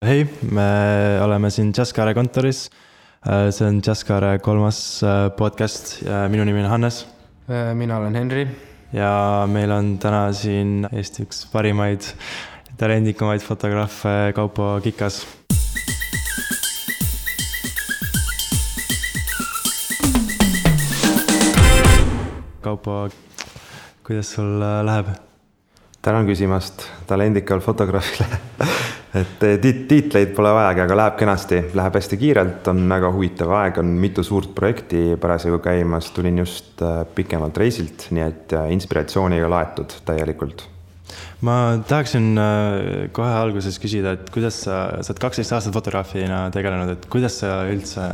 Hei, me oleme siin Jazzkaare kontoris. See on Jazzkaare 3. podcast ja minu nimi on Hannes. Mina olen Henri. Ja meil on täna siin Eesti üks parimaid, talendikumaid fotograafe Kaupo Kikas. Kaupo, kuidas sul läheb? Tänan küsimast talendikal fotograafile. Et tiitleid pole vajagi, aga läheb kenasti, läheb hästi kiirelt, on väga huvitav aeg, on mitu suurt projekti parasjagu käimas, tulin just pikemalt reisilt, nii et inspiratsiooniga laetud täielikult. Ma tahaksin kohe alguses küsida, et kuidas sa oled 12 aastat fotograafina tegelenud, et kuidas sa üldse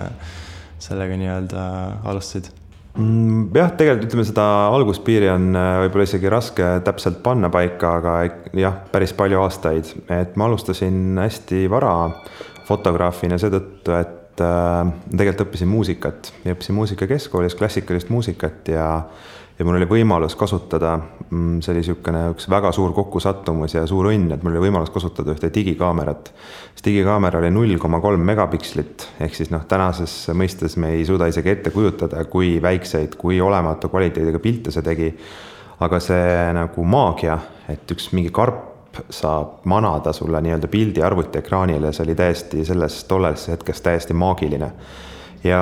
sellega nii-öelda alustasid? Jah, tegelikult ütleme seda alguspiiri on võib-olla isegi raske täpselt panna paika, aga jah, päris palju aastaid. Et ma alustasin hästi vara fotograafina seetõttu, et tegelikult õppisin muusikat. Ja õppisin muusika keskkoolis, klassikalist muusikat ja mul oli võimalus kasutada, see oli üks väga suur kokkusattumus ja suur õnn, et mul oli võimalus kasutada ühte digikaamerat. See digikaamera oli 0,3 megapikslit, ehk siis tänases mõistes me ei suuda isegi ette kujutada, kui väikseid, kui olematu kvaliteediga pilte see tegi. Aga see nagu maagia, et üks mingi karp saab manada sulle nii-öelda pildi arvuti ekraanile, see oli täiesti tolles hetkes täiesti maagiline. Ja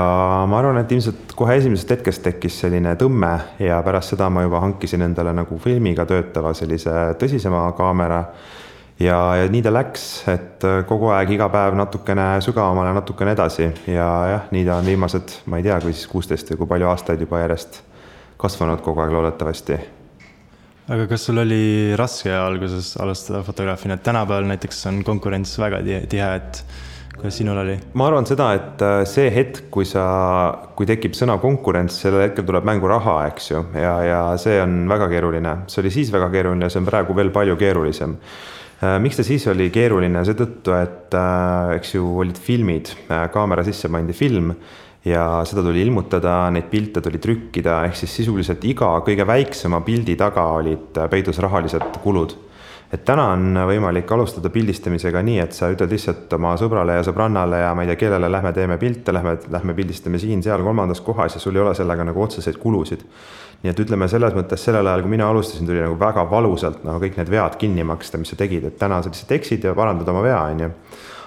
ma arvan, et ilmselt kohe esimesest hetkest tekkis selline tõmme ja pärast seda ma juba hankisin endale nagu filmiga töötava sellise tõsisema kaamera ja nii ta läks, et kogu aeg iga päev natukene sügavamale, natukene edasi ja jah, nii ta on viimased, ma ei tea, kui 16 või kui palju aastaid juba järjest kasvanud kogu aeg loodetavasti. Aga kas sul oli raske alguses alustada fotograafina? Tänapäeval näiteks on konkurents väga tihe, et kuidas sinul oli? Ma arvan seda, et see hetk, kui tekib sõna konkurents, sellel hetkel tuleb mängu raha, eks ju, ja see on väga keeruline. See oli siis väga keeruline, see on praegu veel palju keerulisem. Miks ta siis oli keeruline? Seetõttu, et eks ju olid filmid, kaamera sisse pandi film ja seda tuli ilmutada, neid pilte tuli trükkida, ehk siis sisuliselt iga kõige väiksema pildi taga olid peidus rahalised kulud. Et täna on võimalik alustada pildistamisega nii, et sa ütled lihtsalt oma sõbrale ja sõbrannale ja ma ei tea, kellele lähme teeme pilte, lähme pildistame siin, seal, kolmandas kohas ja sul ei ole sellega nagu otseseid kulusid. Nii et ütleme selles mõttes sellel ajal, kui mina alustasin, tuli nagu väga valusalt kõik need vead kinni maksta, mis sa tegid, et täna sa lihtsalt eksid ja parandad oma vea, on ju.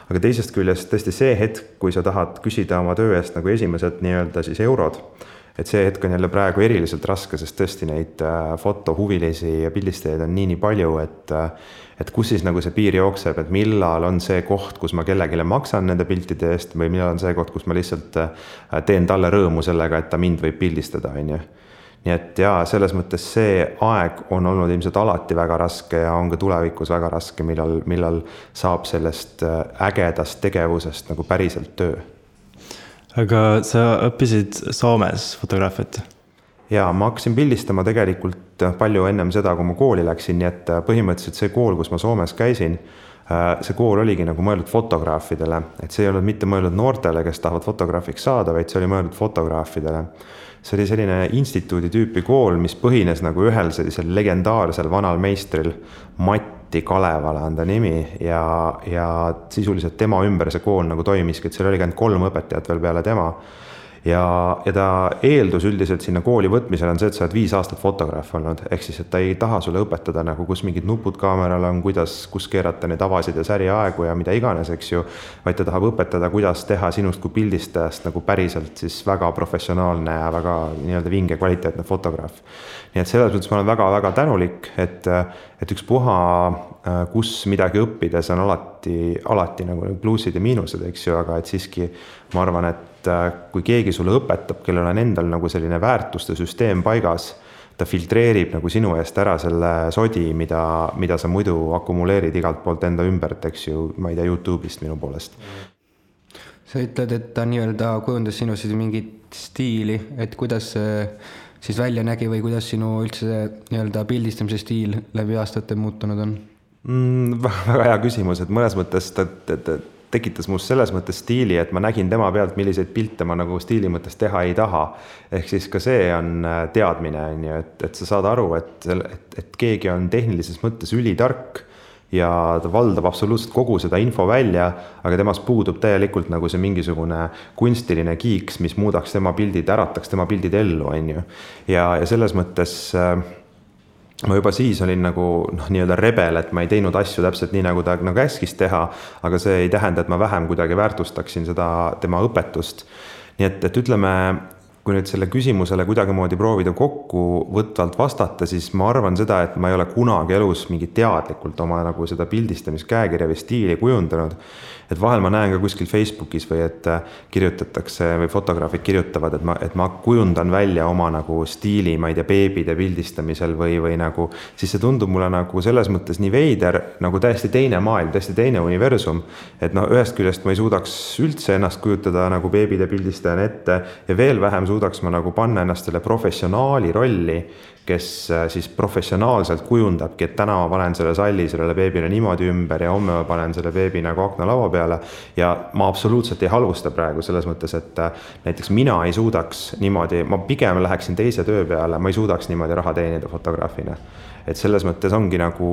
Aga teisest küljest tõesti see hetk, kui sa tahad küsida oma töö eest nagu esimesed nii-öelda siis eurod, et see hetk on jälle praegu eriliselt raske, sest tõesti neid fotohuvilisi ja pildistajaid on nii palju, et kus siis nagu see piir jookseb, et millal on see koht, kus ma kellegile maksan nende piltide eest või millal on see koht, kus ma lihtsalt teen talle rõõmu sellega, et ta mind võib pildistada, on ju. Nii et jaa, selles mõttes see aeg on olnud ilmselt alati väga raske ja on ka tulevikus väga raske, millal saab sellest ägedast tegevusest nagu päriselt töö. Aga sa õppisid Soomes fotograafiat? Jaa, ma hakkasin pildistama tegelikult palju ennem seda, kui ma kooli läksin, nii et põhimõtteliselt see kool, kus ma Soomes käisin, see kool oligi nagu mõeldud fotograafidele, et see ei olnud mitte mõeldud noortele, kes tahavad fotograafiks saada, vaid see oli mõeldud fotograafidele. See oli selline instituudi tüüpi kool, mis põhines nagu ühel sellisel legendaarsel vanal meistril Matti Kalevala on ta nimi ja sisuliselt tema ümber see kool nagu toimiski, et seal oli 3 õpetajat veel peale tema. Ja ta eeldus üldiselt sinna kooli võtmisel on see, et sa oled 5 aastat fotograaf olnud, ehk siis, et ta ei taha sulle õpetada nagu kus mingid nupud kaameral on, kus keerata neid avasid ja säriaegu ja mida iganes, eks ju, vaid ta tahab õpetada, kuidas teha sinust kui pildistajast nagu päriselt siis väga professionaalne ja väga nii-öelda vinge kvaliteetne fotograaf. Nii et selles mõttes ma olen väga-väga tänulik, et üks puha, kus midagi õppides on alati nagu pluusid ja miinused, eks ju, aga et siiski ma arvan, et kui keegi sulle õpetab, kellel on endal nagu selline väärtuste süsteem paigas, ta filtreerib nagu sinu eest ära selle sodi, mida sa muidu akumuleerid igalt poolt enda ümbert, eks ju, ma ei tea, YouTube'ist minu poolest. Sa ütled, et ta nii-öelda kujundas sinu mingit stiili, et kuidas siis välja nägi või kuidas sinu üldse nii-öelda pildistamise stiil läbi aastate muutunud on? Väga hea küsimus, et mõnes mõttes tekitas must selles mõttes stiili, et ma nägin tema pealt, milliseid pilte ma nagu stiili mõttes teha ei taha. Ehk siis ka see on teadmine, et sa saad aru, et keegi on tehnilises mõttes ülitark ja ta valdab absoluutselt kogu seda info välja, aga temast puudub täielikult nagu see mingisugune kunstiline kiiks, mis muudaks tema pildid, ärataks tema pildid ellu, on ju. Ja selles mõttes ma juba siis olin nagu nii-öelda rebel, et ma ei teinud asju täpselt nii, nagu ta nagu käskis teha, aga see ei tähenda, et ma vähem kuidagi väärtustaksin seda tema õpetust. Nii et ütleme, kui nüüd selle küsimusele kuidagimoodi proovida kokkuvõtvalt vastata, siis ma arvan seda, et ma ei ole kunagi elus mingi teadlikult oma nagu seda pildistamiskäekirja või stiili kujundanud. Et vahel ma näen ka kuskil Facebookis või et kirjutatakse või fotograafid kirjutavad, et ma kujundan välja oma nagu stiili, ma ei tea, beebide pildistamisel või nagu, siis see tundub mulle nagu selles mõttes nii veider, nagu täiesti teine maailm, täiesti teine universum. Et ühest küljest ma ei suudaks üldse ennast kujutada nagu beebide pildistajana ette ja veel vähem suudaks ma nagu panna ennast selle professionaali rolli, kes siis professionaalselt kujundabki, et täna ma panen selle salli sellele beebile niimoodi ümber ja homme ma panen selle beebi nagu aknalaua peale ja ma absoluutselt ei halvusta praegu selles mõttes, et näiteks mina ei suudaks niimoodi, ma pigem läheksin teise töö peale, ma ei suudaks niimoodi raha teenida fotograafina. Et selles mõttes ongi nagu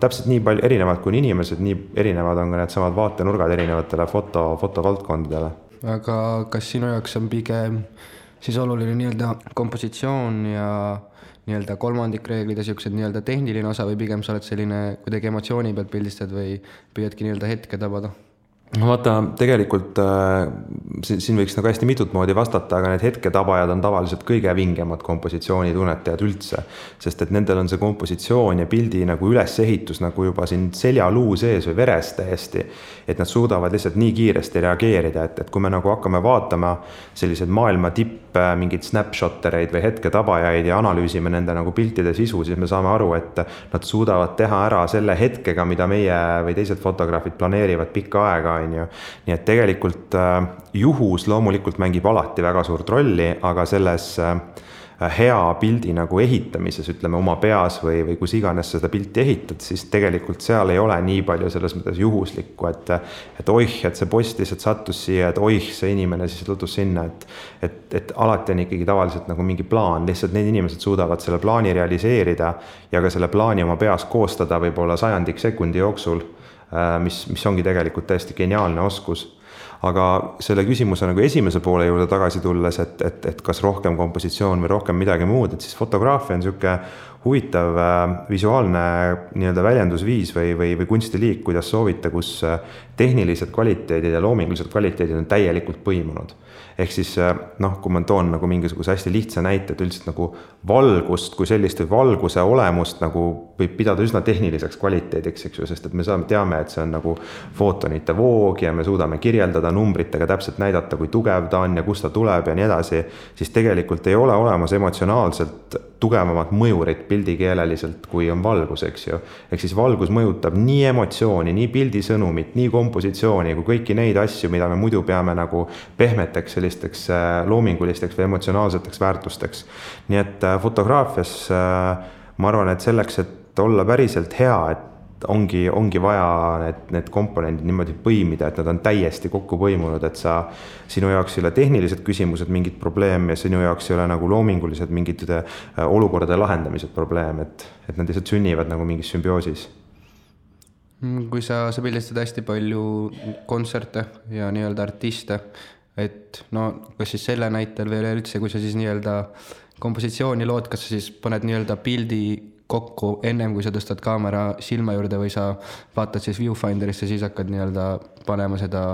täpselt nii palju erinevad kui inimesed, nii erinevad on ka need samad vaatenurgad erinevatele fotovaldkondadele. Aga kas sinu jaoks on pigem siis oluline nii-öelda kompositsioon ja nii-öelda kolmandikreeglid ja siuksed nii-öelda tehniline osa või pigem sa oled selline kuidagi emotsiooni pealt pildistad või püüadki nii-öelda hetke tabada? Vaata, tegelikult siin võiks nagu hästi mitut moodi vastata, aga need hetketabajad on tavaliselt kõige vingemad kompositsioonitunnetajad üldse, sest et nendel on see kompositsioon ja pildi nagu ülesehitus nagu juba siin seljaluu sees või veres täiesti, et nad suudavad lihtsalt nii kiiresti reageerida, et kui me nagu hakkame vaatama sellised maailma tipp mingid snapshottereid või hetketabajaid ja analüüsime nende nagu piltide sisu, siis me saame aru, et nad suudavad teha ära selle hetkega, mida meie või teised fotograafid planeerivad pikka aega. Nii et tegelikult juhus loomulikult mängib alati väga suurt rolli, aga selles hea pildi nagu ehitamises, ütleme oma peas või kus iganes seda pilti ehitad, siis tegelikult seal ei ole nii palju selles mõttes juhuslikku, et oih, et see post lihtsalt sattus siia, et oih, see inimene siis lõtus sinna, et alati on ikkagi tavaliselt nagu mingi plaan, lihtsalt need inimesed suudavad selle plaani realiseerida ja ka selle plaani oma peas koostada võib-olla 100 sekundi jooksul, mis ongi tegelikult täiesti geniaalne oskus. Aga selle küsimuse nagu esimese poole juurde tagasi tulles, et kas rohkem kompositsioon või rohkem midagi muud, et siis fotograafia on niisugune huvitav visuaalne nii-öelda väljendusviis või kunstiliik, kuidas soovita, kus tehnilised kvaliteedid ja loomingulised kvaliteedid on täielikult põimunud. Ehk siis, kui ma toon nagu mingisuguse hästi lihtsa näite, et üldiselt nagu valgust kui sellist või valguse olemust nagu võib pidada üsna tehniliseks kvaliteediks, eks ju, sest et me teame, et see on nagu footonite voog ja me suudame kirjeldada numbritega täpselt näidata, kui tugev ta on ja kust ta tuleb ja nii edasi, siis tegelikult ei ole olemas emotsionaalselt tugevamat mõjurit pildikeeleliselt, kui on valgus, eks ju. Ehk siis valgus mõjutab nii emotsiooni, nii pildisõnumit, nii kompositsiooni kui kõiki neid asju, mida me muidu peame nagu pehmeteks sellisteks loomingulisteks või emotsionaalseteks väärtusteks. Nii et fotograafias ma arvan, et selleks, et olla päriselt hea, et ongi vaja need komponendid niimoodi põimida, et nad on täiesti kokku põimunud, et sinu jaoks ei ole tehnilised küsimused mingid probleem ja sinu jaoks ei ole nagu loomingulised mingid olukordade lahendamised probleem, et nad lihtsalt sünnivad nagu mingis sümbioosis. Kui sa pildistad hästi palju kontserte ja nii-öelda artiste, et kas siis selle näitel või üleüldse, kui sa siis nii-öelda kompositsiooni lood, kas sa siis paned nii-öelda pildi kokku ennem, kui sa tõstad kaamera silma juurde või sa vaatad siis viewfinderisse, siis hakkad nii-öelda panema seda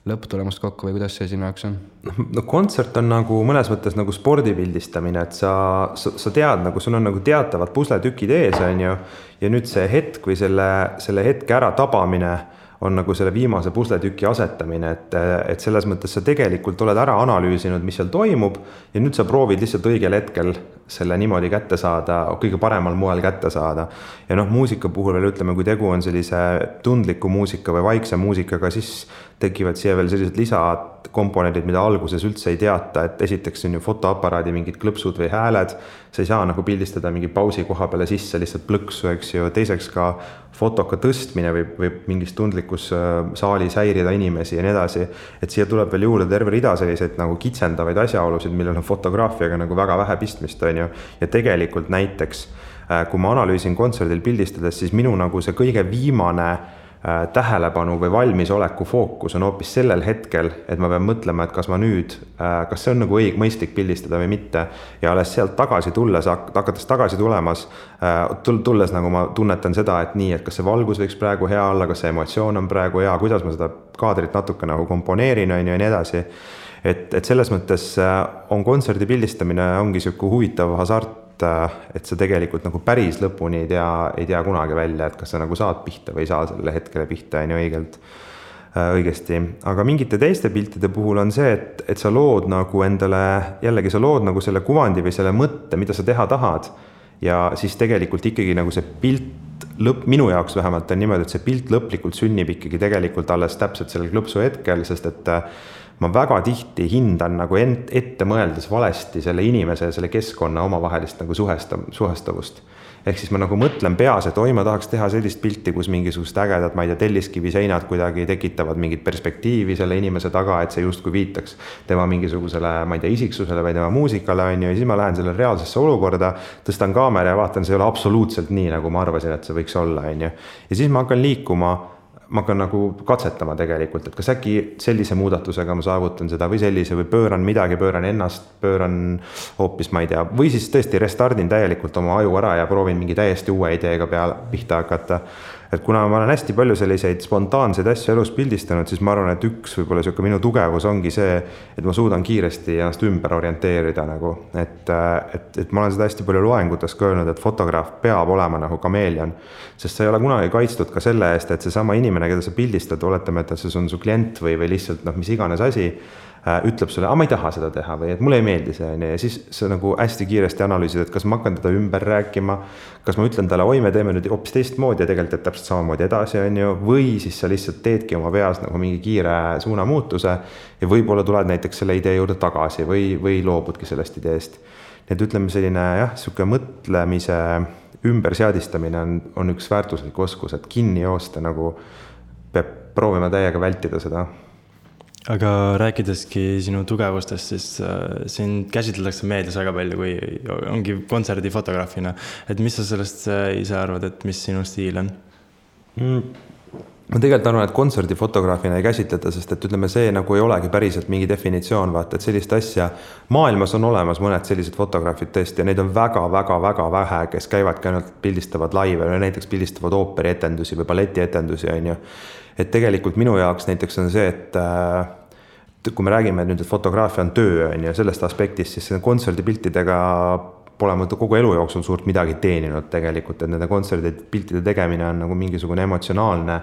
lõpptulemust kokku või kuidas see sinu jaoks on? Kontsert on nagu mõnes mõttes nagu spordipildistamine, et sa tead, nagu sul on nagu teatavad pusletükid ees, on ju, ja nüüd see hetk või selle hetke ära tabamine on nagu selle viimase pusletüki asetamine, et selles mõttes sa tegelikult oled ära analüüsinud, mis seal toimub ja nüüd sa proovid lihtsalt õigel hetkel selle niimoodi kätte saada, kõige paremal moel kätte saada. Ja muusika puhul veel ütleme, kui tegu on sellise tundliku muusika või vaikse muusikaga, siis tekivad siia veel sellised lisakomponendid, mida alguses üldse ei teata, et esiteks on ju fotoaparaadi mingid klõpsud või hääled, sa ei saa nagu pildistada mingi pausi koha peale sisse lihtsalt plõksu, eks ju, teiseks ka fotoka tõstmine võib mingis tundlikus saalis häirida inimesi ja nii edasi, et siia tuleb veel juurde terve rida selliseid nagu kitsendavaid asjaolusid, millel on fotograafiaga nagu väga vähe pistmist, on ju, ja tegelikult näiteks kui ma analüüsin kontserdil pildistades, siis minu nagu see kõige viimane tähelepanu või valmisoleku fookus on hoopis sellel hetkel, et ma pean mõtlema, et kas see on nagu mõistlik pildistada või mitte. Ja alles sealt tagasi tulles, hakates tagasi tulles nagu ma tunnetan seda, et nii, et kas see valgus võiks praegu hea olla, kas see emotsioon on praegu hea, kuidas ma seda kaadrit natuke nagu komponeerin ja nii edasi. Et selles mõttes on kontserdi pildistamine ongi siuke huvitav hasart, et sa tegelikult nagu päris lõpuni ei tea kunagi välja, et kas sa nagu saad pihta või ei saa selle hetkele pihta õigesti. Aga mingite teiste piltide puhul on see, et sa lood nagu endale, jällegi sa lood nagu selle kuvandi või selle mõtte, mida sa teha tahad. Ja siis tegelikult ikkagi nagu see pilt minu jaoks vähemalt on niimoodi, et see pilt lõplikult sünnib ikkagi tegelikult alles täpselt sellel klõpsu hetkel, sest et ma väga tihti hindan nagu ette mõeldes valesti selle inimese ja selle keskkonna omavahelist nagu suhestavust. Ehk siis ma nagu mõtlen peas, et ma tahaks teha sellist pilti, kus mingisugust ägedad, ma ei tea, telliskivi seinad kuidagi tekitavad mingit perspektiivi selle inimese taga, et see justkui viitaks tema mingisugusele, ma ei tea, isiksusele või tema muusikale, ja siis ma lähen selle reaalsesse olukorda, tõstan kaamera ja vaatan, see ei ole absoluutselt nii, nagu ma arvasin, et see võiks olla, ja siis ma hakkan liikuma, ma hakkan nagu katsetama tegelikult, et kas äkki sellise muudatusega ma saavutan seda või sellise või pööran midagi, pööran ennast, pööran hoopis, ma ei tea, või siis tõesti restardin täielikult oma aju ära ja proovin mingi täiesti uue ideega pihta hakata. Et kuna ma olen hästi palju selliseid spontaanseid asju elus pildistanud, siis ma arvan, et üks võib-olla siuke minu tugevus ongi see, et ma suudan kiiresti ennast ümber orienteerida nagu, et ma olen seda hästi palju loengutes ka öelnud, et fotograaf peab olema nagu kameelion, sest sa ei ole kunagi kaitstud ka selle eest, et seesama inimene, keda sa pildistad, oletame, et see on su klient või lihtsalt mis iganes asi, ütleb sulle, ma ei taha seda teha või et mulle ei meeldi see, ja siis sa nagu hästi kiiresti analüüsid, et kas ma hakkan teda ümber rääkima, kas ma ütlen talle, me teeme nüüd hoopis teistmoodi ja tegelikult et täpselt samamoodi edasi, või siis sa lihtsalt teedki oma peas nagu mingi kiire suunamuutuse ja võib-olla tuled näiteks selle idee juurde tagasi või loobudki sellest ideest. Nii et ütleme selline siuke mõtlemise ümberseadistamine on üks väärtuslik oskus, et kinni joosta nagu peab proovima täiega vältida seda. Aga rääkideski sinu tugevustest, siis sind käsitletakse meedias väga palju, kui ongi kontserdifotograafina. Et mis sa sellest ise arvad, et mis sinu stiil on? Ma tegelikult arvan, et kontserdifotograafina ei käsitleta, sest et ütleme, see nagu ei olegi päriselt mingi definitsioon, vaata, et sellist asja maailmas on olemas mõned sellised fotograafid tõesti ja neid on väga vähe, kes käivadki ainult pildistavad laive või näiteks pildistavad ooperietendusi või balletietendusi, Et tegelikult minu jaoks näiteks on see, et kui me räägime nüüd, et fotograafia on töö, sellest aspektist, siis kontserdipiltidega pole ma kogu elu jooksul suurt midagi teeninud tegelikult, et nende kontserdipiltide tegemine on nagu mingisugune emotsionaalne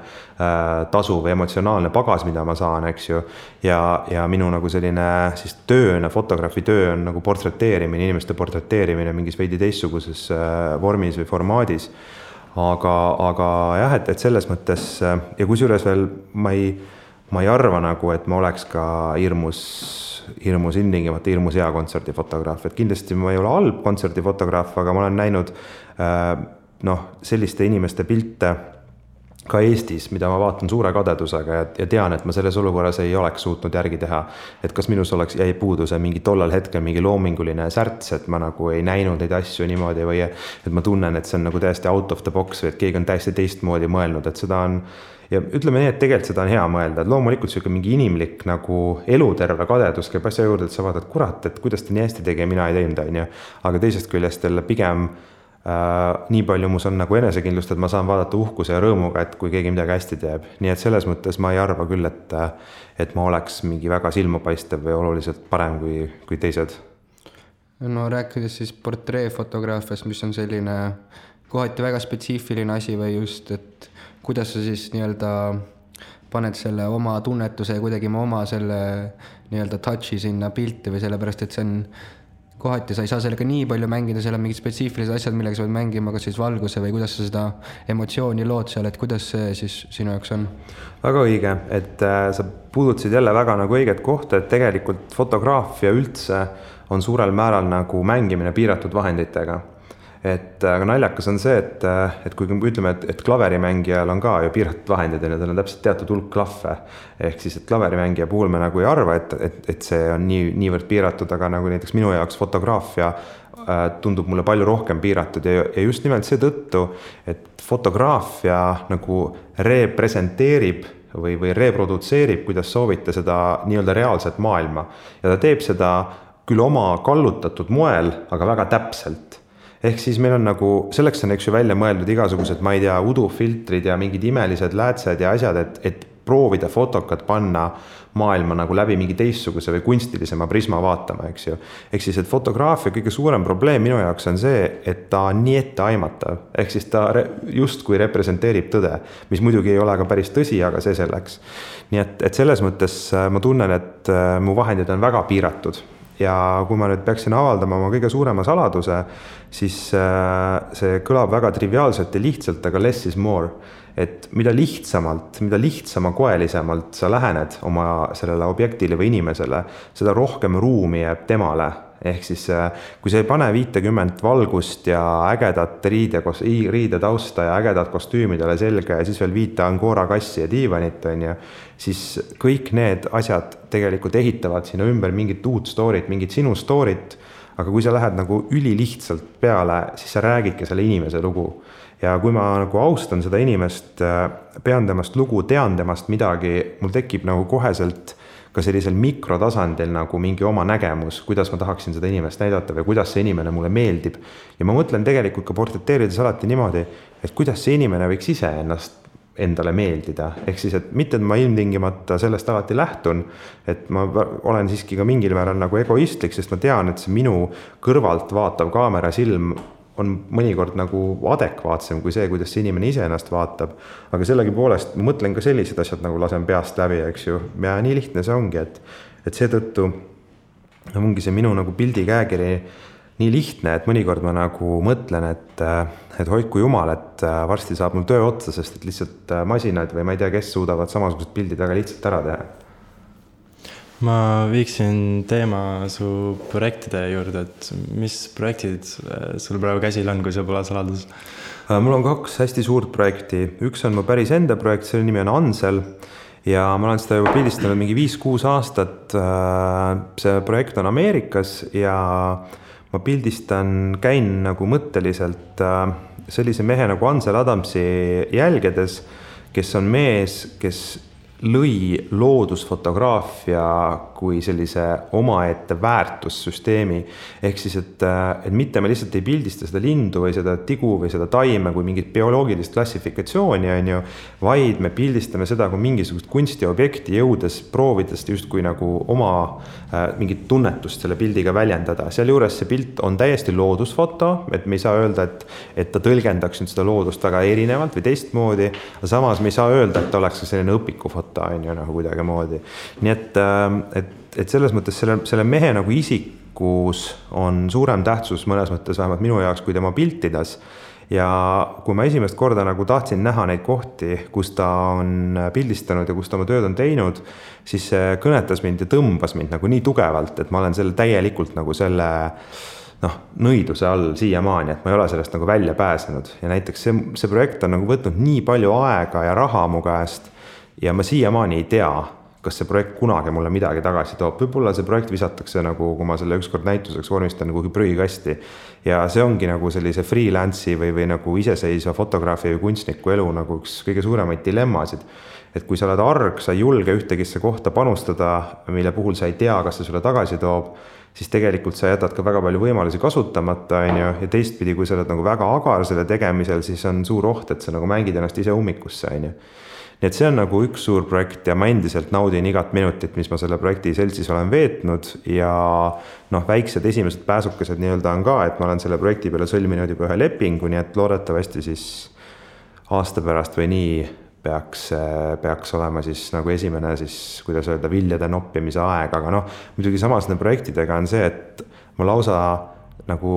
tasu või emotsionaalne pagas, mida ma saan, eks ju. Ja minu nagu selline siis tööna, fotograafi töö on nagu portreteerimine, inimeste portreteerimine mingis veidi teistsuguses vormis või formaadis. Aga jah, et selles mõttes ja kusjuures veel ma ei arva nagu, et ma oleks ka hirmus hea kontserdifotograaf, et kindlasti ma ei ole halb kontserdifotograaf, aga ma olen näinud selliste inimeste pilte ka Eestis, mida ma vaatan suure kadedusega ja tean, et ma selles olukorras ei oleks suutnud järgi teha, et kas minus jäi puudu see mingi tollal hetkel mingi loominguline särts, et ma nagu ei näinud neid asju niimoodi või et ma tunnen, et see on nagu täiesti out of the box või et keegi on täiesti teistmoodi mõelnud, et seda on ja ütleme nii, et tegelikult seda on hea mõelda, et loomulikult siuke mingi inimlik nagu eluterve kadedus käib asja juurde, et sa vaatad, kurat, et kuidas ta nii hästi tegi ja mina ei teinud, aga teisest küljest jälle pigem nii palju mus on nagu enesekindlust, et ma saan vaadata uhkuse ja rõõmuga, et kui keegi midagi hästi teeb. Nii et selles mõttes ma ei arva küll, et ma oleks mingi väga silmapaistev või oluliselt parem kui teised. No rääkides siis portreefotograafiast, mis on selline kohati väga spetsiifiline asi või just, et kuidas sa siis nii-öelda paned selle oma tunnetuse ja kuidagi oma selle nii-öelda touchi sinna pilti või sellepärast, et see on kohati sa ei saa sellega nii palju mängida, seal on mingid spetsiifilised asjad, millega sa pead mängima, kas siis valguse või kuidas sa seda emotsiooni lood seal, et kuidas see siis sinu jaoks on? Väga õige, et sa puudutasid jälle väga nagu õiget kohta, et tegelikult fotograafia üldse on suurel määral nagu mängimine piiratud vahenditega. et aga naljakas on see, et kui ütleme, et klaverimängijal on ka ju piiratud vahendid ja tal on täpselt teatud hulk klahve, ehk siis, et klaverimängija puhul me nagu ei arva, et see on niivõrd piiratud, aga nagu näiteks minu jaoks fotograafia tundub mulle palju rohkem piiratud ja just nimelt seetõttu, et fotograafia nagu representeerib või reprodutseerib, kuidas soovite seda nii-öelda reaalset maailma ja ta teeb seda küll oma kallutatud moel, aga väga täpselt. Ehk siis meil on nagu, selleks on eks ju välja mõeldud igasugused, ma ei tea, udufiltrid ja mingid imelised läätsed ja asjad, et proovida fotokat panna maailma nagu läbi mingi teistsuguse või kunstilisema prisma vaatama, eks ju. Ehk siis, et fotograafia kõige suurem probleem minu jaoks on see, et ta on nii etteaimatav. Ehk siis ta justkui representeerib tõde, mis muidugi ei ole ka päris tõsi, aga see selleks. Nii et selles mõttes ma tunnen, et mu vahendid on väga piiratud. Ja kui ma nüüd peaksin avaldama oma kõige suurema saladuse, siis see kõlab väga triviaalselt ja lihtsalt, aga less is more. Et mida lihtsama koelisemalt sa lähened oma sellele objektile või inimesele, seda rohkem ruumi jääb temale. Ehk siis, kui sa ei pane 50 valgust ja ägedat riidetausta ja ägedat kostüümidele selga ja siis veel 5 Angora kassi ja diivanit, siis kõik need asjad tegelikult ehitavad sinna ümber mingit uut storyt, mingit sinu storyt, aga kui sa lähed nagu ülilihtsalt peale, siis sa räägidki selle inimese lugu. Ja kui ma nagu austan seda inimest, pean temast lugu, tean temast midagi, mul tekib nagu koheselt ka sellisel mikrotasandil nagu mingi oma nägemus, kuidas ma tahaksin seda inimest näidata või kuidas see inimene mulle meeldib. Ja ma mõtlen tegelikult ka portreteerides alati niimoodi, et kuidas see inimene võiks ise ennast endale meeldida. Ehk siis, et mitte ma ilmtingimata sellest alati lähtun, et ma olen siiski ka mingil määral nagu egoistlik, sest ma tean, et see minu kõrvalt vaatav kaamera silm on mõnikord nagu adekvaatsem kui see, kuidas see inimene ise ennast vaatab. Aga sellegi poolest ma mõtlen ka sellised asjad nagu lasen peast läbi, eks ju. Ja nii lihtne see ongi, et seetõttu ongi see minu nagu pildi käekiri nii lihtne, et mõnikord ma nagu mõtlen, et hoidku jumal, et varsti saab mul töö otsa, sest et lihtsalt masinad või ma ei tea, kes suudavad samasugused pildid väga lihtsalt ära teha. Ma viiksin teema su projektide juurde, et mis projektid sul praegu käsil on, kui see pole saladus? Mul on 2 hästi suurt projekti. Üks on mu päris enda projekt, selle nimi on Ansel ja ma olen seda juba pildistanud mingi 5-6 aastat. See projekt on Ameerikas ja ma käin nagu mõtteliselt sellise mehe nagu Ansel Adamsi jälgedes, kes on mees, kes lõi loodusfotograafia kui sellise omaette väärtussüsteemi. Ehk siis, et mitte me lihtsalt ei pildista seda lindu või seda tigu või seda taime kui mingit bioloogilist klassifikatsiooni, vaid me pildistame seda kui mingisugust kunstiobjekti jõudes, proovides justkui nagu oma mingit tunnetust selle pildiga väljendada. Seal juures see pilt on täiesti loodusfoto, et me ei saa öelda, et ta tõlgendaks seda loodust väga erinevalt või teistmoodi, aga samas me ei saa öelda, et ta oleks selline õpikufoto nagu kuidagi moodi. Nii et selles mõttes selle mehe nagu isikus on suurem tähtsus mõnes mõttes vähemalt minu jaoks kui tema piltides. Ja kui ma esimest korda nagu tahtsin näha neid kohti, kus ta on pildistanud ja kus ta oma tööd on teinud, siis see kõnetas mind ja tõmbas mind nagu nii tugevalt, et ma olen selle täielikult nagu selle nõiduse all siiamaani, et ma ei ole sellest nagu välja pääsenud. Ja näiteks see projekt on nagu võtnud nii palju aega ja raha mu käest, ja ma siiamaani ei tea, kas see projekt kunagi mulle midagi tagasi toob. Võib-olla see projekt visatakse nagu, kui ma selle ükskord näituseks vormistan kuhugi prügikasti. Ja see ongi nagu sellise freelance'i või nagu iseseisva fotograafi või kunstniku elu nagu üks kõige suuremaid dilemmasid. Et kui sa oled arg, sa ei julge ühtegisse kohta panustada, mille puhul sa ei tea, kas see sulle tagasi toob, siis tegelikult sa jätad ka väga palju võimalusi kasutamata, ja teistpidi, kui sa oled nagu väga agar selle tegemisel, siis on suur oht, et sa nagu mängid ennast ise ummikusse, Nii et see on nagu üks suur projekt ja ma endiselt naudin igat minutit, mis ma selle projekti seltsis olen veetnud ja väiksed esimesed pääsukesed nii-öelda on ka, et ma olen selle projekti peale sõlminud juba ühe lepingu, nii et loodetavasti siis aasta pärast või nii peaks olema siis nagu esimene siis, kuidas öelda, viljade noppimise aeg, aga muidugi samas projektidega on see, et ma lausa nagu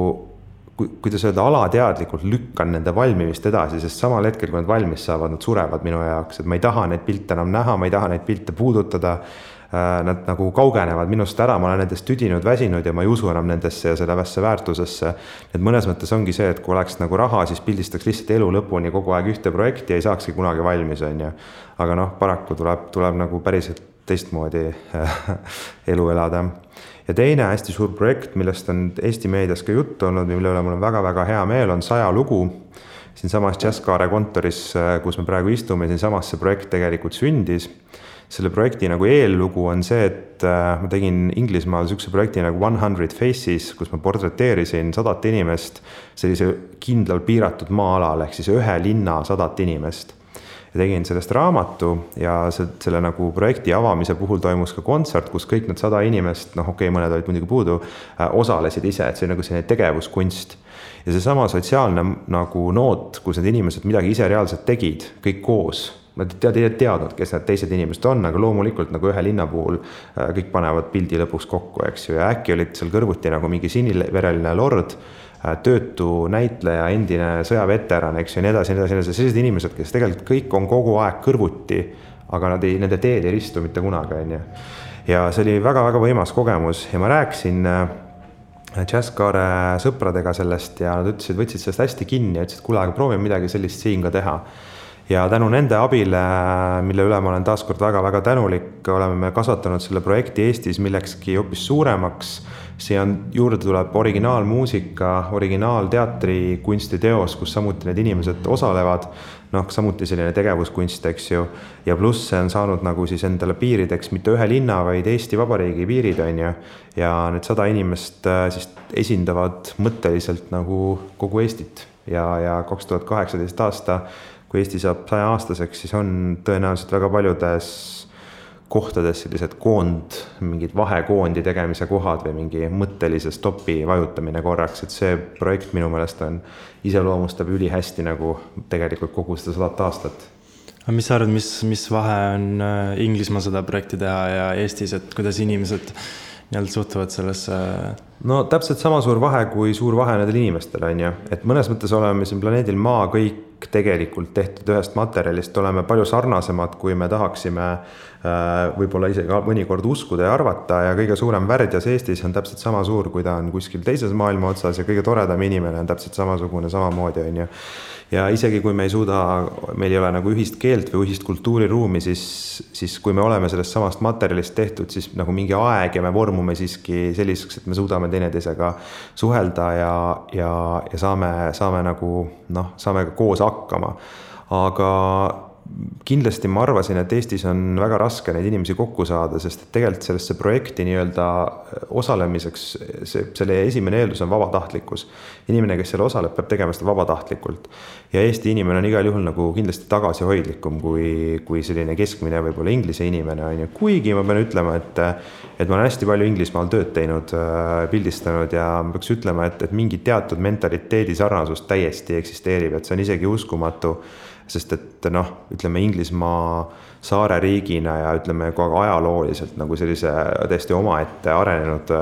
kuidas öelda, alateadlikult lükkan nende valmimist edasi, sest samal hetkel, kui nad valmis saavad, nad surevad minu jaoks, et ma ei taha neid pilte enam näha, ma ei taha neid pilte puudutada. Nad nagu kaugenevad minust ära, ma olen nendest tüdinud, väsinud ja ma ei usu enam nendesse ja sellesse väärtusesse. Et mõnes mõttes ongi see, et kui oleks nagu raha, siis pildistaks lihtsalt elu lõpuni kogu aeg ühte projekti ja ei saakski kunagi valmis, on ju. Aga noh, paraku tuleb nagu päriselt teistmoodi elu elada. Ja teine hästi suur projekt, millest on Eesti meedias ka juttu olnud, mille üle mul on väga-väga hea meel, on 100 lugu. Siin samas Jazzkaare kontoris, kus me praegu istume, siin samas see projekt tegelikult sündis. Selle projekti nagu eellugu on see, et ma tegin Inglismaal sükse projekti nagu 100 Faces, kus ma portreteerisin 100 inimest sellise kindlal piiratud maa-alal, ehk siis ühe linna 100 inimest. Ja tegin sellest raamatu ja selle nagu projekti avamise puhul toimus ka kontsert, kus kõik need 100 inimest, mõned olid muidugi puudu, osalesid ise, et see nagu selline tegevuskunst. Ja see sama sotsiaalne nagu noot, kus need inimesed midagi ise reaalselt tegid, kõik koos. Ma teadnud, kes need teised inimesed on, aga loomulikult nagu ühe linna puhul kõik panevad pildi lõpuks kokku, eks ju. Ja äkki olid seal kõrvuti nagu mingi sinivereline lord, töötu näitleja, endine sõjaveteran, eks ju, nii edasi. Sellised inimesed, kes tegelikult kõik on kogu aeg kõrvuti, aga nende teed ei ristu mitte kunagi, on ju. Ja see oli väga-väga võimas kogemus ja ma rääkisin Jazzkaare sõpradega sellest ja nad ütlesid, võtsid sellest hästi kinni ja ütlesid, kuule, aga proovime midagi sellist siin ka teha. Ja tänu nende abile, mille üle ma olen taaskord väga-väga tänulik, oleme me kasvatanud selle projekti Eestis millekski hoopis suuremaks. Siia juurde tuleb originaalmuusika, originaalteatri kunstiteos, kus samuti need inimesed osalevad. Samuti selline tegevuskunst, eks ju. Ja pluss see on saanud nagu siis endale piirideks mitte ühe linna, vaid Eesti Vabariigi piirid, on ju. Ja need 100 inimest siis esindavad mõtteliselt nagu kogu Eestit. Ja 2018 aasta kui Eesti saab 100 aastaseks, siis on tõenäoliselt väga paljudes kohtades sellised mingid vahekoondi tegemise kohad või mingi mõttelise stopi vajutamine korraks, et see projekt minu meelest iseloomustab ülihästi nagu tegelikult kogu seda 100 aastat. Aga mis sa arvad, mis vahe on Inglismaa seda projekti teha ja Eestis, et kuidas inimesed suhtuvad sellesse? No täpselt sama suur vahe kui suur vahe nendel inimestel, on ju. Et mõnes mõttes oleme siin planeedil Maa kõik tegelikult tehtud ühest materjalist, oleme palju sarnasemad, kui me tahaksime võib-olla isegi mõnikord uskuda ja arvata ja kõige suurem värdjas Eestis on täpselt sama suur, kui ta on kuskil teises maailma otsas ja kõige toredam inimene on täpselt samasugune samamoodi, on ju. Ja isegi kui me ei suuda, meil ei ole nagu ühist keelt või ühist kultuuriruumi, siis kui me oleme sellest samast materjalist tehtud, siis nagu mingi aeg ja me vormume siiski selliseks, et me suudame teineteisega suhelda ja saame nagu, saame koos hakkama. Aga kindlasti ma arvasin, et Eestis on väga raske neid inimesi kokku saada, sest tegelikult sellesse projekti nii-öelda osalemiseks, selle esimene eeldus on vabatahtlikkus. Inimene, kes selle osaleb, peab tegema seda vabatahtlikult. Ja Eesti inimene on igal juhul nagu kindlasti tagasihoidlikum kui selline keskmine võib-olla Inglise inimene on ju. Kuigi ma pean ütlema, et ma olen hästi palju Inglismaal tööd teinud, pildistanud ja ma peaks ütlema, et mingi teatud mentaliteedi sarnasus täiesti eksisteerib, et see on isegi uskumatu. Sest et ütleme Inglismaa saare riigina ja ütleme ajalooliselt nagu sellise täiesti omaette arenenud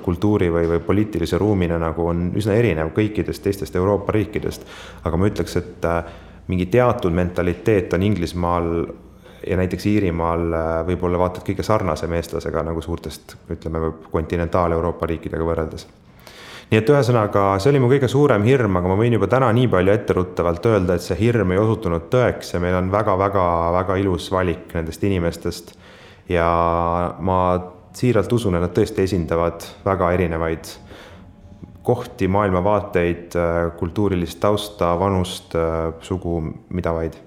kultuuri või poliitilise ruumina nagu on üsna erinev kõikidest teistest Euroopa riikidest. Aga ma ütleks, et mingi teatud mentaliteet on Inglismaal ja näiteks Iirimaal võib-olla vaatad kõige sarnasem eestlasega nagu suurtest, ütleme, kontinentaal-Euroopa riikidega võrreldes. Nii et ühesõnaga, see oli mu kõige suurem hirm, aga ma võin juba täna nii palju etteruttavalt öelda, et see hirm ei osutunud tõeks ja meil on väga-väga ilus valik nendest inimestest. Ja ma siiralt usun, et nad tõesti esindavad väga erinevaid kohti, maailmavaateid, kultuurilist tausta, vanust, sugu, mida vaid.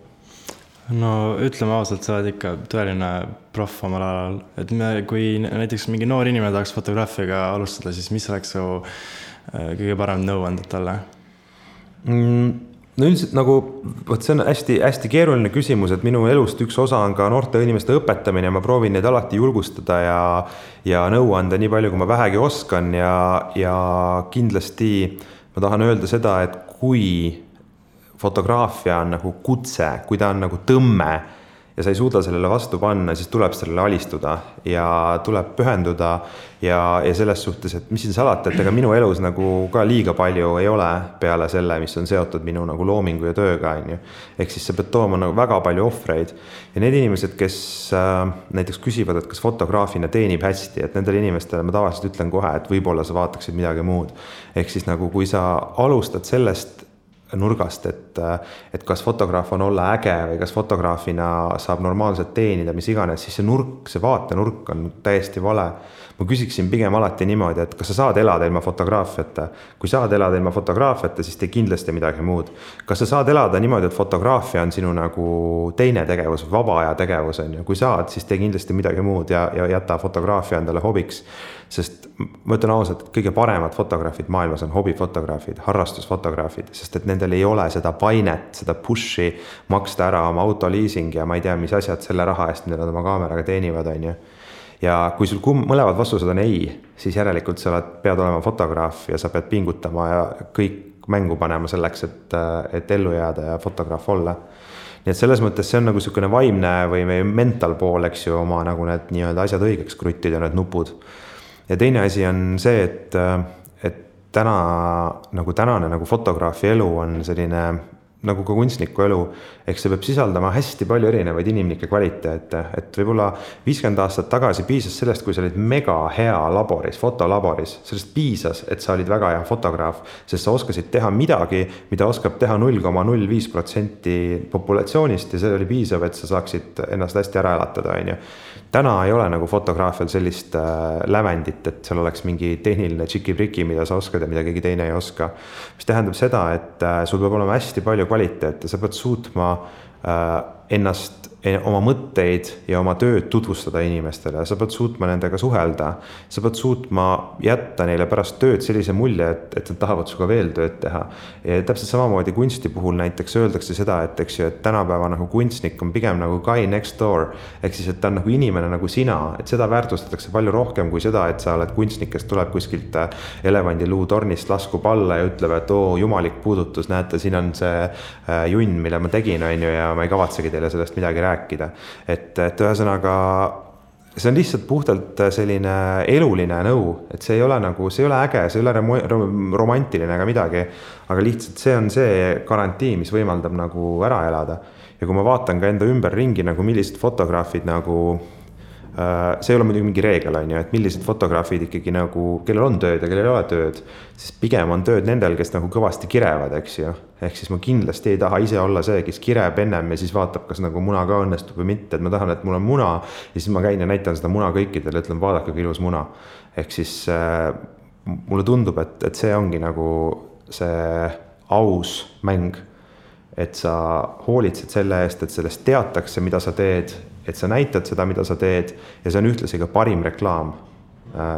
No ütleme ausalt, sa oled ikka tõeline proff omal alal. Et kui näiteks mingi noor inimene tahaks fotograafiaga alustada, siis mis oleks su kõige parem nõuanded talle? No üldiselt nagu, see on hästi keeruline küsimus, et minu elust üks osa on ka noorte inimeste õpetamine, ma proovin neid alati julgustada ja nõuanda nii palju, kui ma vähegi oskan ja kindlasti ma tahan öelda seda, et kui fotograafia on nagu kutse, kui ta on nagu tõmme ja sa ei suuda sellele vastu panna, siis tuleb sellele alistuda ja tuleb pühenduda ja selles suhtes, et mis siin salata, et ega minu elus nagu ka liiga palju ei ole peale selle, mis on seotud minu nagu loomingu ja tööga, on ju. Ehk siis sa pead tooma nagu väga palju ohvreid ja need inimesed, kes näiteks küsivad, et kas fotograafina teenib hästi, et nendele inimestele ma tavaliselt ütlen kohe, et võib-olla sa vaataksid midagi muud. Ehk siis nagu kui sa alustad sellest nurgast, et kas fotograaf on olla äge või kas fotograafina saab normaalselt teenida, mis iganes, siis see nurk, see vaatenurk on täiesti vale. Ma küsiksin pigem alati niimoodi, et kas sa saad elada ilma fotograafiata. Kui saad elada ilma fotograafiata, siis tee kindlasti midagi muud. Kas sa saad elada niimoodi, et fotograafia on sinu nagu teine tegevus, vaba aja tegevus on ju. Kui saad, siis tee kindlasti midagi muud ja jäta fotograafia endale hobiks. Sest ma ütlen ausalt, kõige paremad fotograafid maailmas on hobifotograafid, harrastusfotograafid, sest et nendel ei ole seda painet, seda pushi maksta ära oma autoliising ja ma ei tea, mis asjad selle raha eest, mida nad oma kaameraga teenivad, on ju. Ja kui sul mõlemad vastused on ei, siis järelikult sa pead olema fotograaf ja sa pead pingutama ja kõik mängu panema selleks, et ellu jääda ja fotograaf olla. Nii et selles mõttes see on nagu niisugune vaimne või mental pool, eks ju, oma nagu need nii-öelda asjad õigeks kruttida, need nupud. Ja teine asi on see, et tänane nagu fotograafi elu on selline nagu ka kunstniku elu, ehk see peab sisaldama hästi palju erinevaid inimlikke kvaliteete, et võib-olla 50 aastat tagasi piisas sellest, kui sa olid mega hea laboris, fotolaboris, sellest piisas, et sa olid väga hea fotograaf, sest sa oskasid teha midagi, mida oskab teha 0,05% populatsioonist ja see oli piisav, et sa saaksid ennast hästi ära elatada, on ju. Täna ei ole nagu fotograafial sellist lävendit, et seal oleks mingi tehniline tšiki-priki, mida sa oskad ja mida keegi teine ei oska. Mis tähendab seda, et sul peab olema hästi palju kvaliteete, sa pead suutma ennast, oma mõtteid ja oma tööd tutvustada inimestele, sa pead suutma nendega suhelda, sa pead suutma jätta neile pärast tööd sellise mulje, et nad tahavad suga veel tööd teha. Ja täpselt samamoodi kunsti puhul näiteks öeldakse seda, et tänapäeva nagu kunstnik on pigem nagu guy next door, ehk siis, et ta on nagu inimene nagu sina, et seda väärtustatakse palju rohkem kui seda, et sa oled kunstnik, kes tuleb kuskilt elevandiluu tornist laskub alla ja ütleb, et jumalik puudutus, näete, siin on see junn, mille ma tegin, on ju, ja ma ei kavatsegi teile sellest midagi rääkida. Et ühesõnaga, see on lihtsalt puhtalt selline eluline nõu, et see ei ole nagu, see ei ole äge, see ei ole romantiline ega midagi, aga lihtsalt see on see garantii, mis võimaldab nagu ära elada. Ja kui ma vaatan ka enda ümber ringi, nagu millised fotograafid nagu, see ei ole muidugi mingi reegel, on ju, et millised fotograafid ikkagi nagu, kellel on tööd ja kellel ei ole tööd, siis pigem on tööd nendel, kes nagu kõvasti kirevad, eks ju. Ehk siis ma kindlasti ei taha ise olla see, kes kireb ennem ja siis vaatab, kas nagu muna ka õnnestub või mitte, et ma tahan, et mul on muna ja siis ma käin ja näitan seda muna kõikidele, ütlen, vaadake, kui ilus muna. Ehk siis mulle tundub, et see ongi nagu see aus mäng, et sa hoolitsed selle eest, et sellest teatakse, mida sa teed, et sa näitad seda, mida sa teed ja see on ühtlasi ka parim reklaam,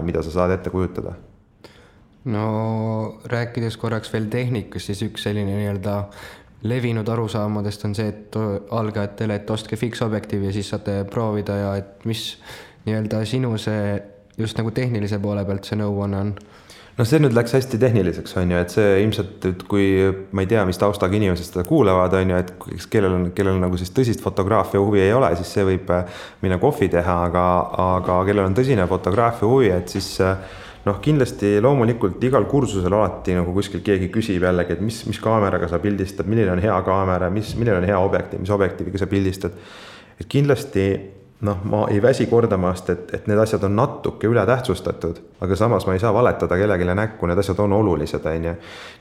mida sa saad ette kujutada. No rääkides korraks veel tehnikast, siis üks selline nii-öelda levinud arusaamadest on see, et algajatele, et ostke fiksobjektiivi ja siis saate proovida ja et mis nii-öelda sinu see just nagu tehnilise poole pealt see nõuanne on? No see nüüd läks hästi tehniliseks, on ju, et see ilmselt, et kui ma ei tea, mis taustaga inimesed seda kuulevad, on ju, et kellel nagu siis tõsist fotograafia huvi ei ole, siis see võib minna kohvi teha, aga kellel on tõsine fotograafia huvi, et siis kindlasti loomulikult igal kursusel alati nagu kuskil keegi küsib jällegi, et mis kaameraga sa pildistad, milline on hea kaamera, milline on hea objektiiv, mis objektiiviga sa pildistad. Et kindlasti ma ei väsi kordamast, et need asjad on natuke üle tähtsustatud, aga samas ma ei saa valetada kellegile näkku, need asjad on olulised, on ju.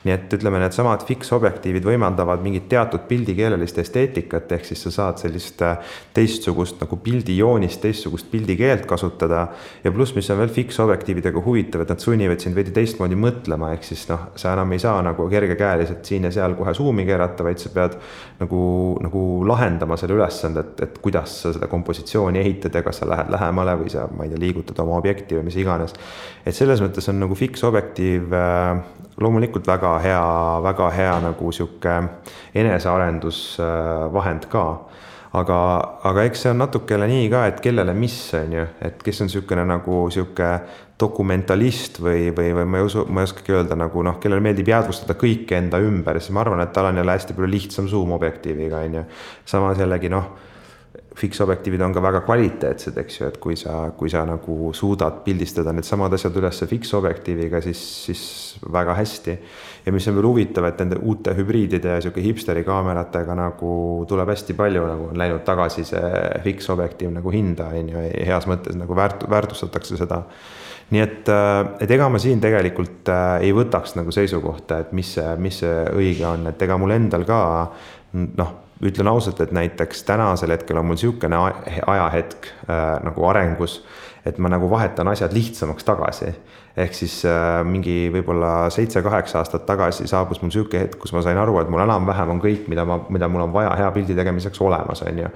Nii et ütleme, need samad fiksobjektiivid võimaldavad mingit teatud pildikeelelist esteetikat, ehk siis sa saad sellist teistsugust nagu pildijoonist, teistsugust pildikeelt kasutada ja pluss, mis on veel fiksobjektiividega huvitav, et nad sunnivad sind veidi teistmoodi mõtlema, ehk siis sa enam ei saa nagu kergekäeliselt siin ja seal kohe suumi keerata, vaid sa pead nagu lahendama selle ülesande, et kuidas sa seda kompositsiooni ehitad ja kas sa lähed lähemale või sa, ma ei tea, liigutad oma objekti või mis iganes. Et selles mõttes on nagu fiksobjektiiv loomulikult väga hea nagu siuke enesearendusvahend ka. Aga eks see on natukele nii ka, et kellele mis on ju, et kes on siukene nagu siuke dokumentalist või ma ei oskagi öelda nagu kellele meeldib jäädvustada kõike enda ümber, siis ma arvan, et tal on jälle hästi palju lihtsam zoom-objektiiviga on ju. Samas jällegi fiksobjektiivid on ka väga kvaliteetsed, eks ju, et kui sa nagu suudad pildistada need samad asjad üles fiksobjektiiviga, siis väga hästi. Ja mis on veel huvitav, et nende uute hübriidide ja siuke hipsteri kaameratega nagu tuleb hästi palju, nagu on läinud tagasi see fiksobjektiiv nagu hinda, heas mõttes nagu väärtustatakse seda. Nii et ega ma siin tegelikult ei võtaks nagu seisukohta, et mis see õige on, et ega mul endal ka, ütlen ausalt, et näiteks tänasel hetkel on mul siukene ajahetk nagu arengus, et ma nagu vahetan asjad lihtsamaks tagasi. Ehk siis mingi võib-olla 7-8 aastat tagasi saabus mul siuke hetk, kus ma sain aru, et mul enam-vähem on kõik, mida mul on vaja hea pildi tegemiseks olemas, on ju.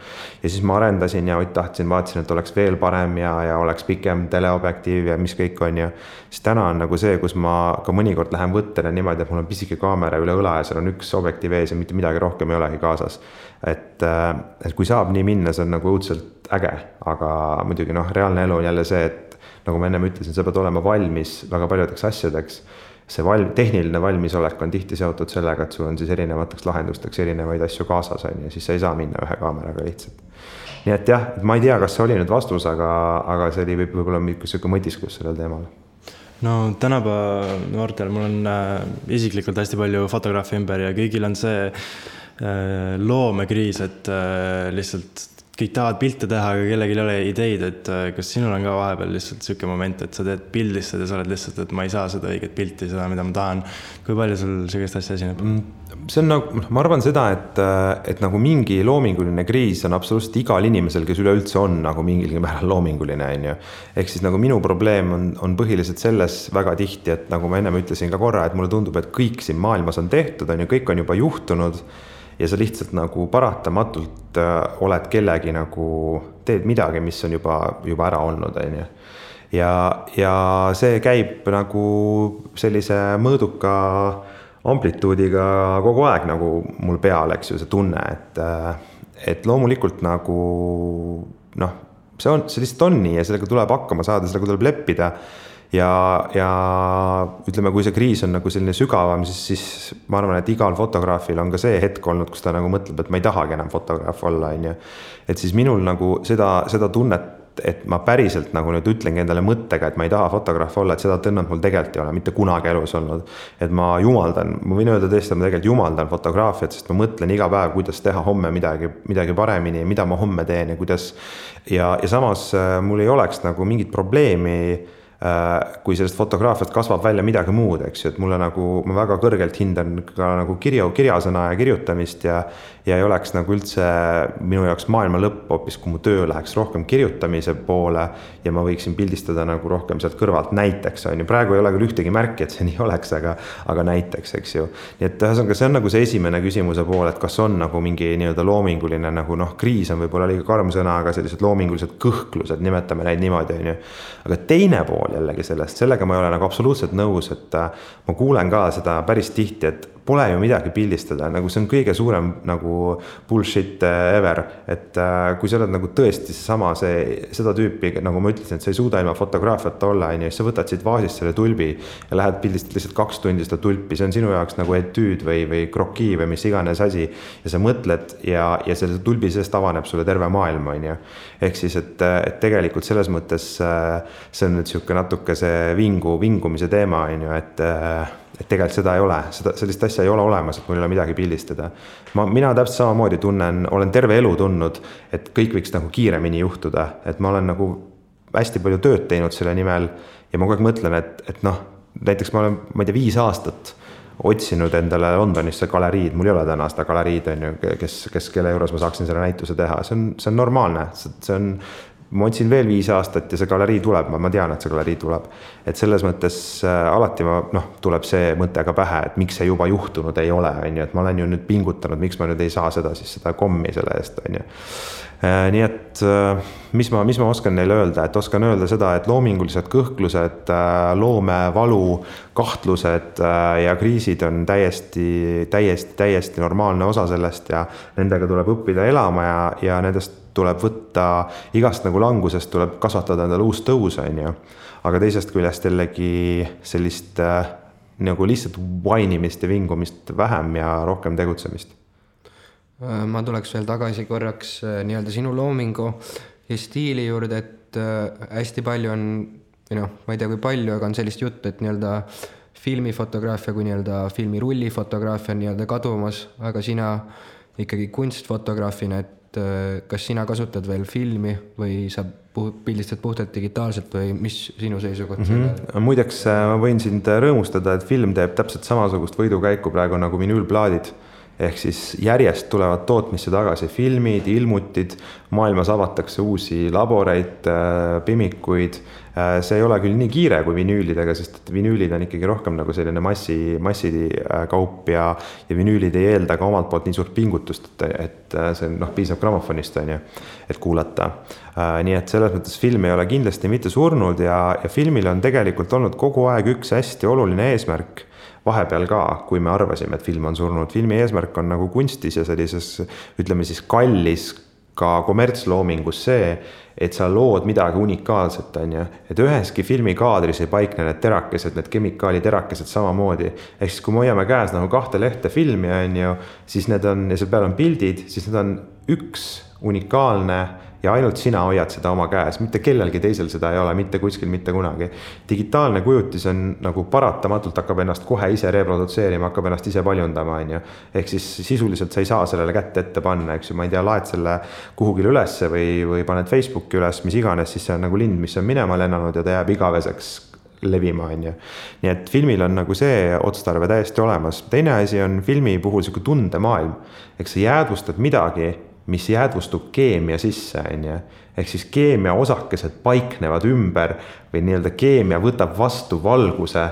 Ja siis ma arendasin ja vaatasin, et oleks veel parem ja oleks pikem teleobjektiiv ja mis kõik on ju. Siis täna on nagu see, kus ma ka mõnikord lähen võttele niimoodi, et mul on pisike kaamera üle õla ja seal on üks objektiiv ees ja mitte midagi rohkem ei olegi kaasas. Et kui saab nii minna, see on nagu õudselt äge, aga muidugi reaalne elu on jälle see, et nagu ma ennem ütlesin, sa pead olema valmis väga paljudeks asjadeks. See tehniline valmisolek on tihti seotud sellega, et sul on siis erinevateks lahendusteks erinevaid asju kaasas on ja siis sa ei saa minna ühe kaameraga lihtsalt. Nii et jah, ma ei tea, kas see oli nüüd vastus, aga see oli võib-olla selline mõtisklus sellel teemal. No tänapäeva noortel mul on isiklikult hästi palju fotograafi ümber ja kõigil on see loomekriis, et lihtsalt kõik tahavad pilte teha, aga kellelgi ei ole ideid, et kas sinul on ka vahepeal lihtsalt siuke moment, et sa teed pildistad ja sa oled lihtsalt, et ma ei saa seda õiget pilti, seda, mida ma tahan. Kui palju sul sellist asja esineb? See on nagu, ma arvan seda, et nagu mingi loominguline kriis on absoluutselt igal inimesel, kes üleüldse on nagu mingilgi määral loominguline. Ehk siis nagu minu probleem on põhiliselt selles väga tihti, et nagu ma ennem ütlesin ka korra, et mulle tundub, et kõik siin maailmas on tehtud, kõik on juba juhtunud ja sa lihtsalt nagu paratamatult oled kellegi nagu, teed midagi, mis on juba ära olnud. Ja see käib nagu sellise mõõduka amplituudiga kogu aeg nagu mul peal, eks ju, see tunne, et loomulikult nagu see lihtsalt on nii ja sellega tuleb hakkama saada, sellega tuleb leppida. Ja ütleme, kui see kriis on nagu selline sügavam, siis ma arvan, et igal fotograafil on ka see hetk olnud, kus ta nagu mõtleb, et ma ei tahagi enam fotograaf olla. Et siis minul nagu seda tunnet, et ma päriselt nagu nüüd ütlengi endale mõttega, et ma ei taha fotograaf olla, et seda tõnnat mul tegelikult ei ole mitte kunagi elus olnud. Et ma võin öelda tõesti, et ma tegelikult jumaldan fotograafiat, sest ma mõtlen iga päev, kuidas teha homme midagi paremini, mida ma homme teen ja kuidas. Ja samas mul ei oleks nagu mingit probleemi, kui sellest fotograafiat kasvab välja midagi muud, eks ju, et mulle nagu, ma väga kõrgelt hindan ka nagu kirjasõna ja kirjutamist ja ei oleks nagu üldse minu jaoks maailma lõpp hoopis, kui mu töö läheks rohkem kirjutamise poole ja ma võiksin pildistada nagu rohkem sealt kõrvalt näiteks, on ju. Praegu ei ole küll ühtegi märki, et see nii oleks, aga näiteks, eks ju. Nii et see on nagu see esimene küsimuse pool, et kas on nagu mingi nii-öelda loominguline nagu kriis on võib-olla liiga karm sõna, aga sellised loomingulised kõhklused, nimetame neid niimoodi, on ju. Aga teine pool jällegi sellega ma ei ole nagu absoluutselt nõus, et ma kuulen ka seda päris tihti, et pole ju midagi pildistada, nagu see on kõige suurem nagu bullshit ever, et kui sa oled nagu tõesti seda tüüpi, nagu ma ütlesin, et sa ei suuda ilma fotograafiata olla, ja sa võtad siit vaasist selle tulbi ja lähed pildistad lihtsalt 2 tundi seda tulpi, see on sinu jaoks nagu etüüd või krokii või mis iganes asi ja sa mõtled ja selle tulbi seest avaneb sulle terve maailm, on ju. Ehk siis, et tegelikult selles mõttes see on nüüd siuke natuke see vingumise teema, on ju, et tegelikult seda ei ole, sellist asja ei ole olemas, et mul ei ole midagi pildistada. Mina täpselt samamoodi olen terve elu tundnud, et kõik võiks nagu kiiremini juhtuda, et ma olen nagu hästi palju tööd teinud selle nimel ja ma kogu aeg mõtlen, et näiteks ma olen, ma ei tea, 5 aastat otsinud endale Londonisse galeriid, mul ei ole täna seda galeriid, on ju, kelle juures ma saaksin selle näituse teha, see on normaalne, ma otsin veel 5 aastat ja see galerii tuleb, ma tean, et see galerii tuleb. Et selles mõttes alati tuleb see mõte ka pähe, et miks see juba juhtunud ei ole, on ju, et ma olen ju nüüd pingutanud, miks ma nüüd ei saa seda kommi selle eest, on ju. Nii et mis ma oskan neile öelda, et oskan öelda seda, et loomingulised kõhklused, loomevalu, kahtlused ja kriisid on täiesti normaalne osa sellest ja nendega tuleb õppida elama ja nendest tuleb võtta, igast nagu langusest tuleb kasvatada endale uus tõus, on ju. Aga teisest küljest jällegi sellist nagu lihtsalt vainimist ja vingumist vähem ja rohkem tegutsemist. Ma tuleks veel tagasi korraks nii-öelda sinu loomingu ja stiili juurde, et hästi palju on, ma ei tea kui palju, aga on sellist juttu, et nii-öelda filmifotograafia kui nii-öelda filmirullifotograafia on nii-öelda kadumas, aga sina ikkagi kunstfotograafina, et kas sina kasutad veel filmi või sa pildistad puhtalt digitaalselt või mis sinu seisukoht selle? Muideks ma võin sind rõõmustada, et film teeb täpselt samasugust võidukäiku praegu nagu vinüülplaadid. Ehk siis järjest tulevad tootmisse tagasi filmid, ilmutid, maailmas avatakse uusi laboreid, pimikuid. See ei ole küll nii kiire kui vinüülidega, sest vinüülid on ikkagi rohkem nagu selline massikaup ja vinüülid ei eelda ka omalt poolt nii suurt pingutust, et see piisab grammofonist, et kuulata. Nii et selles mõttes film ei ole kindlasti mitte surnud ja filmil on tegelikult olnud kogu aeg üks hästi oluline eesmärk vahepeal ka, kui me arvasime, et film on surnud. Filmi eesmärk on nagu kunstis ja sellises, ütleme siis kallis ka kommertsloomingus see, et sa lood midagi unikaalset, et üheski filmikaadris ei paikne need terakesed, need kemikaaliterakesed samamoodi. Ehk siis, kui me hoiame käes nagu 2 lehte filmi, siis need on, ja seal peal on pildid, siis need on üks unikaalne ja ainult sina hoiad seda oma käes, mitte kellelgi teisel seda ei ole, mitte kuskil, mitte kunagi. Digitaalne kujutis on nagu paratamatult hakkab ennast kohe ise reprodutseerima, hakkab ennast ise paljundama, Ehk siis sisuliselt sa ei saa sellele kätte ette panna, eks ju, ma ei tea, laed selle kuhugil ülesse või paned Facebooki üles, mis iganes, siis see on nagu lind, mis on minema lennanud ja ta jääb igaveseks levima, Nii et filmil on nagu see otstarve täiesti olemas. Teine asi on filmi puhul selline tundemaailm, eks sa jäädvustad midagi, mis jäädvustub keemia sisse, ehk siis keemia osakesed paiknevad ümber või nii-öelda keemia võtab vastu valguse.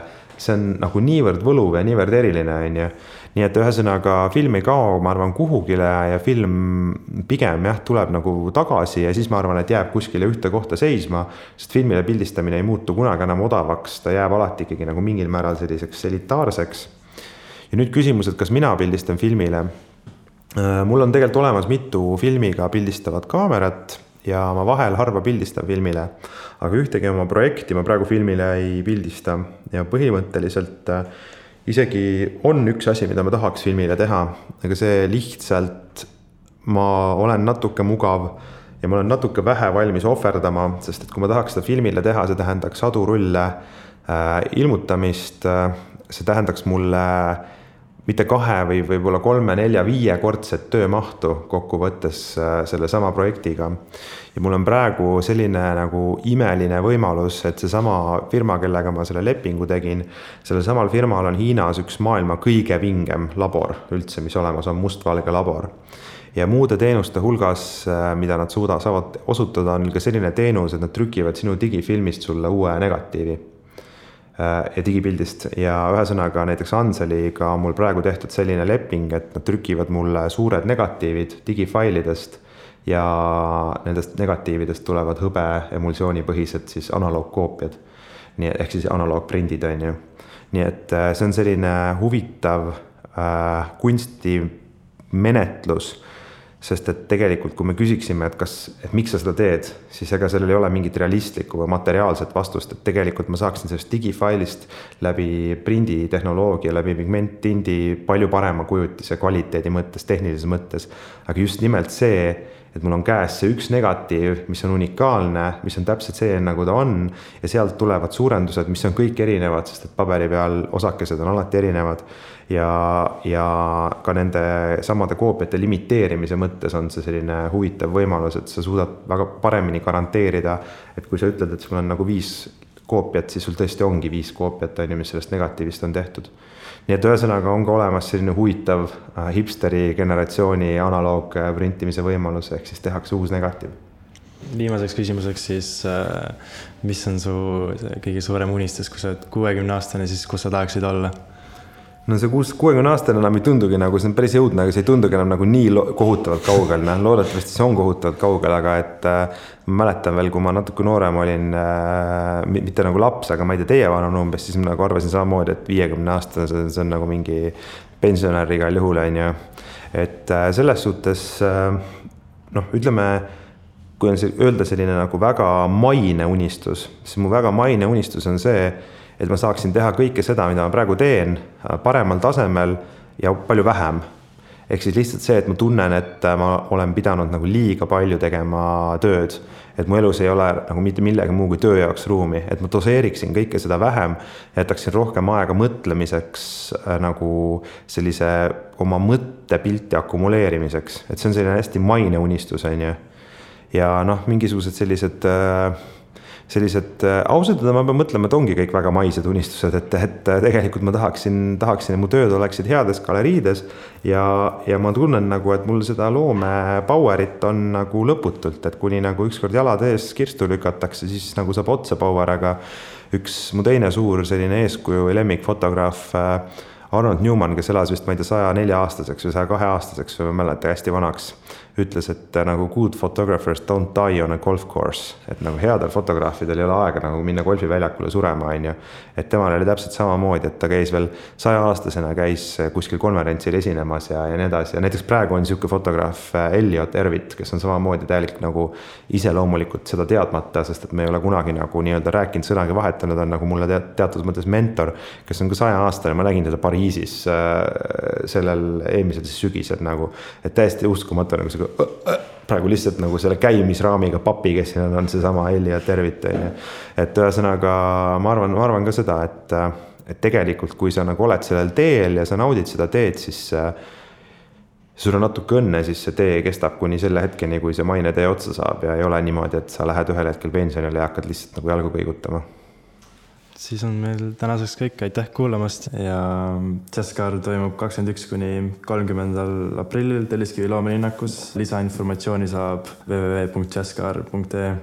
See on nagu niivõrd võluv ja niivõrd eriline, Nii et ühesõnaga film ei kao, ma arvan, kuhugile ja film pigem tuleb nagu tagasi ja siis ma arvan, et jääb kuskile ühte kohta seisma, sest filmile pildistamine ei muutu kunagi enam odavaks, ta jääb alati ikkagi nagu mingil määral selliseks elitaarseks. Ja nüüd küsimus, et kas mina pildistan filmile? Mul on tegelikult olemas mitu filmiga pildistavat kaamerat ja ma vahel harva pildistan filmile, aga ühtegi oma projekti ma praegu filmile ei pildista ja põhimõtteliselt isegi on üks asi, mida ma tahaks filmile teha, aga see lihtsalt ma olen natuke mugav ja ma olen natuke vähe valmis ohverdama, sest et kui ma tahaks seda filmile teha, see tähendaks sadu rulle ilmutamist, see tähendaks mulle mitte 2 või võib-olla 3, 4, 5 kordset töömahtu kokku võttes selle sama projektiga. Ja mul on praegu selline nagu imeline võimalus, et see sama firma, kellega ma selle lepingu tegin, selle samal firmal on Hiinas üks maailma kõige vingem labor üldse, mis olemas on, mustvalge labor. Ja muude teenuste hulgas, mida nad saavad osutada, on ka selline teenus, et nad trükivad sinu digifilmist sulle uue negatiivi ja digipildist ja ühesõnaga näiteks Anseliga on mul praegu tehtud selline leping, et nad trükivad mulle suured negatiivid digifailidest ja nendest negatiividest tulevad hõbe emulsioonipõhised siis analoogkoopiad, ehk siis analoogprindid Nii et see on selline huvitav kunstimenetlus, sest et tegelikult, kui me küsiksime, et miks sa seda teed, siis ega sellel ei ole mingit realistlikku või materiaalset vastust, et tegelikult ma saaksin sellest digifailist läbi prinditehnoloogia, läbi pigmenttindi palju parema kujutise kvaliteedi mõttes, tehnilises mõttes, aga just nimelt see, et mul on käes see üks negatiiv, mis on unikaalne, mis on täpselt see, nagu ta on ja sealt tulevad suurendused, mis on kõik erinevad, sest et paberi peal osakesed on alati erinevad ja ka nende samade koopiate limiteerimise mõttes on see selline huvitav võimalus, et sa suudad väga paremini garanteerida, et kui sa ütled, et sul on nagu 5 koopiat, siis sul tõesti ongi 5 koopiat, mis sellest negatiivist on tehtud. Nii et ühesõnaga on ka olemas selline huvitav hipsteri generatsiooni analoog printimise võimalus, ehk siis tehakse uus negatiiv. Viimaseks küsimuseks siis, mis on su kõige suurem unistus, kui sa oled 60-aastane, siis kus sa tahaksid olla? No see 60-aastane enam ei tundugi nagu, see on päris jõudne, aga see ei tundugi enam nagu nii kohutavalt kaugel. Loodetavasti see on kohutavalt kaugel, aga et ma mäletan veel, kui ma natuke noorem olin, mitte nagu laps, aga ma ei tea, teie vanun umbes, siis ma nagu arvasin samamoodi, et 50-aastane, see on nagu mingi pensionär igal juhul. Et selles suhtes, ütleme, kui on öelda selline nagu väga maine unistus, siis mu väga maine unistus on see, et ma saaksin teha kõike seda, mida ma praegu teen, paremal tasemel ja palju vähem. ehk siis lihtsalt see, et ma tunnen, et ma olen pidanud nagu liiga palju tegema tööd, et mu elus ei ole nagu mitte millegi muu kui töö jaoks ruumi, et ma doseeriksin kõike seda vähem, jätaksin rohkem aega mõtlemiseks nagu sellise oma mõttepilti akumuleerimiseks, et see on selline hästi maine unistus, on ju. Ja noh, mingisugused sellised ausalt, ma pean mõtlema, et ongi kõik väga maised unistused, et tegelikult ma tahaksin, et mu tööd oleksid heades galeriides ja ma tunnen nagu, et mul seda loome powerit on nagu lõputult, et kuni nagu ükskord jalad ees kirstu lükatakse, siis nagu saab otsa power, aga üks mu teine suur selline eeskuju või lemmikfotograaf Arnold Newman, kes elas vist, ma ei tea, 104-aastaseks või 102-aastaseks või ma mäleta hästi vanaks, ütles, et nagu good photographers don't die on a golf course, et nagu headel fotograafidel ei ole aega nagu minna golfiväljakule surema, on ju. Et temal oli täpselt samamoodi, et ta käis veel 100-aastasena, käis kuskil konverentsil esinemas ja nii edasi. Ja näiteks praegu on niisugune fotograaf Elliot Erwitt, kes on samamoodi täielik nagu iseloomulikult seda teadmata, sest et me ei ole kunagi nagu nii-öelda rääkinud sõnagi vahetanud, on nagu mulle teatud mõttes mentor, kes on ka 100-aastane, ma nägin teda Pariisis sellel eelmisel sügisel nagu, et täiesti uskumatu nagu see praegu lihtsalt nagu selle käimisraamiga papi, kes siin on seesama Elliot Erwitt. Et ühesõnaga ma arvan ka seda, et tegelikult kui sa nagu oled sellel teel ja sa naudid seda teed, siis sul on natuke õnne, siis see tee kestab kuni selle hetkeni, kui see maine tee otsa saab ja ei ole niimoodi, et sa lähed ühel hetkel pensionile ja hakkad lihtsalt nagu jalgu kõigutama. Siis on meil tänaseks kõik, aitäh kuulamast ja Jazzkaar toimub 21. kuni 30. aprillil Telliskivi loomelinnakus. Lisainformatsiooni saab www.jazzkaar.ee